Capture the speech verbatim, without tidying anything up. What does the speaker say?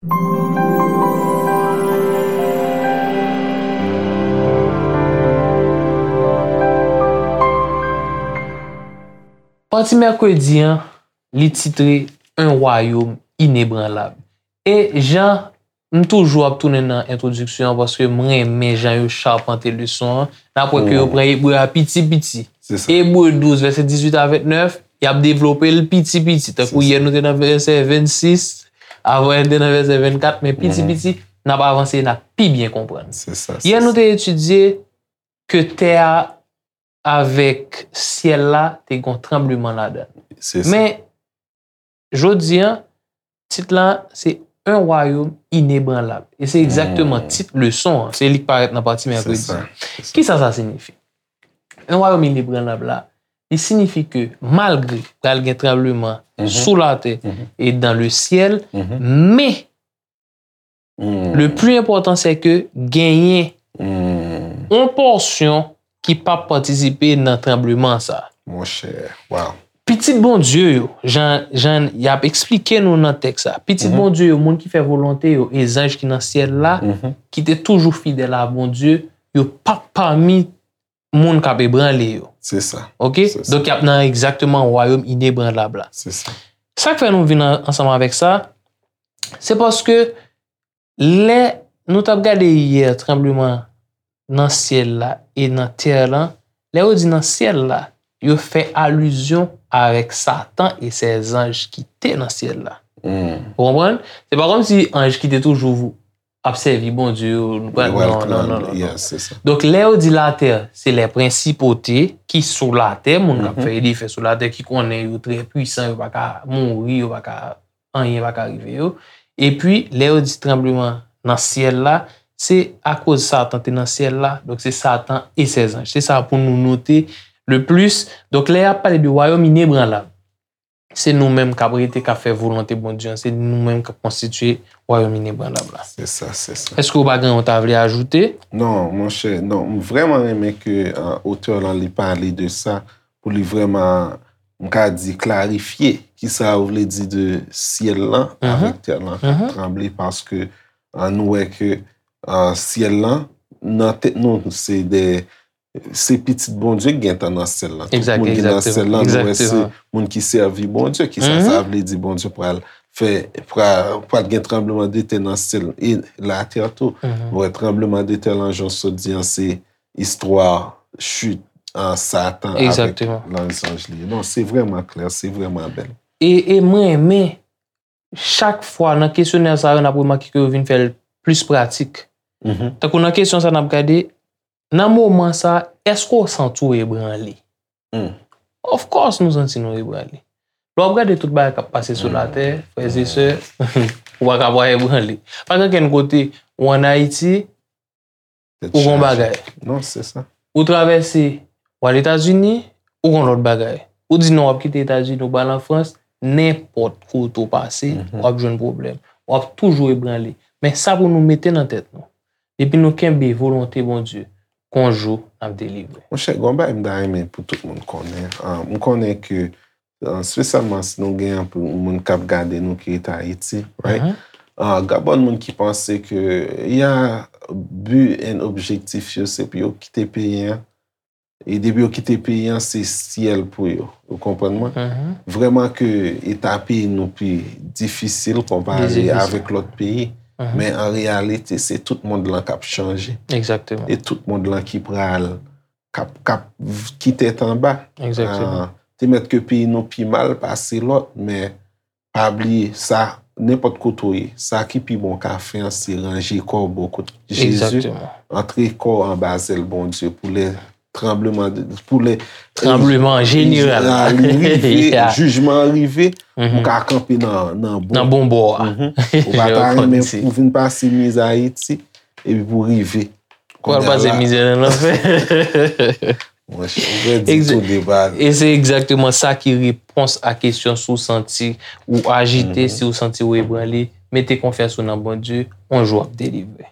Pati mèkredi an, li titre Un royaume inébranlable. E jan m toujou ap tounen nan entwodiksyon an, paske m renmen jan yo chapante leson an, n ap wè ke yo pran Ebre a piti piti. Ebre douz, vèsè dizuit a vennèf, y ap devlope l piti piti. Tankou yè nou te nan vèsè vennsis, avan yè nou te nan vèsè vennkat, men piti piti, n ap avanse, n ap pi byen konprann. Yè nou te etidye ke tè a avèk syèl la te gen yon tranbleman ladan l. Men, jodi an, tit la, se Un royaume inébranlable. E se egzakteman tit leson an. Se li k parèt nan pati mèkredi. Kisa sa siyifi? Un royaume inébranlable la, li siyifi ke malgre pral gen tranbleman sou latè e dans le ciel, men le plus important, c'est que genyen yon pòsyon ki p ap patisipe nan tranbleman sa. Monchè, waw. Pitit Bondye yo, jan, jan y ap eksplike nou nan tèks sa, pitit Bondye yo, moun ki fè volonte yo, e zanj ki nan syèl la, ki te toujou fidèl a Bondye, yo p ap pami moun k ap ebranle yo. Se sa. Oke? Se sa. Donk, y ap nan egzakteman wayòm inebranlab la. Se sa. Sa k fè nou vin an-, ansanm avèk sa, se paske lè nou t ap gade yè tranbleman nan syèl la e nan tè lan, lè yo di nan syèl la, yo fè alizyon avèk Satan e sè zanj ki te nan syèl la. Ou konprann? Se pa kòmsi anj ki te toujou ap sèvi Bondye yo, nou pral, non, non, non, non, non. Donk, lè yo di latè, se lè prensipote ki sou latè, moun k ap fè e defè sou latè, ki konnen yo trè pwisan, yo pa ka mouri, yo pa ka, anyen pa ka rive yo. Epi, lè yo di tranbleman nan syèl la, se akoz Satan te nan syèl la, donk se Satan e sè zanj. Se sa pou nou note le plis. Donk, lè y ap pale de wayòm inebranlab, se nou menm k ap rete, k ap fè volonte Bondye an, se nou menm k ap konstitye wayòm inebranlab la. Se sa, se sa. Èske w pa gen yon ta vle ajoute? Non, monchè, non, m vrèman renmen ke, euh, otè lan li pale de sa, pou li vrèman, m ka di, klarifye kisa yo vle di de syèl lan avèk tè lan k ap tranble, paske, euh, nou wè ke, euh, syèl lan, nan tèt nou, se de se pitit Bondye k gentan nan syèl la. Tout moun ki nan syèl la, nou wè se moun ki sèvi Bondye. Kisa sa vle di? Bondye pral fè, pral, pral gen tranbleman de tè nan syèl e latè tou. Nou wè tranbleman de tè lan, jan w sot di an, se istwa chit, a, Satan avèk lòt zanj li. Non, se vrèman klè, se vrèman bèl. E, e mwen renmen, chak fwa nan kesyonè sa yo, n ap remake ke yo vin fè l plis pratik. Tankou nan kesyon sa n ap gade, nan moman sa, èske w santi w ebranle? Of course, nou santi nou ebranle. Lè w ap gade tout bagay k ap pase sou latè, frè e sè, ou pa ka pa ebranle. Pa gen okenn kote, ou ann Ayiti, ou gon bagay. Non, se sa. Ou travèse, w al Etazini, ou gon lòt bagay. Ou di non, w ap kite Etazini, ou pral an Frans, nenpòt kote w pase, w ap jwenn pwoblèm. W ap toujou ebranle. Men sa pou nou mete nan tèt nou. Depi nou kenbe volonte Bondye, gon jou n ap delivre. Monchè, gon bagay m ta renmen pou tout moun konnen. Ah, m konnen ke, ah, espesyalman si nou gen anpil moun k ap gade nou ki rete Ayiti, right? Ah, gen bon moun ki panse ke, ya, bi and objektif yo, se pou yo kite peyi an. E depi yo kite peyi an, se syèl pou yo. Ou konprann mwen? Vrèman ke eta peyi nou pi difisil konpare avèk lòt peyi. Men an reyalite, se tout mond lan k ap chanje. E tout mond lan ki pral, k ap, k ap v-, ki tèt anba. Ah, te mèt ke peyi nou pi mal pase lòt, men pa bliye sa, nenpòt kote w ye, sa ki pi bon w ka fè an, se ranje kò w bò kot Jezi, antre kò w anba zèl Bondye pou lè tranbleman de, pou lè, tranbleman jeneral la rive, jijman an rive, ou ka kanpe nan, nan bon, nan bon bò a. Ou pa ta renmen pou vin pase mizè Ayiti, epi pou rive. Pou al pase mizè nan lanfè. Monchè, ou fè di tou de baz. E se egzakteman sa ki repons a kesyon si w santi ou ajite, si w santi w ebranle, mete konfyans ou nan Bondye, yon jou w ap delivre.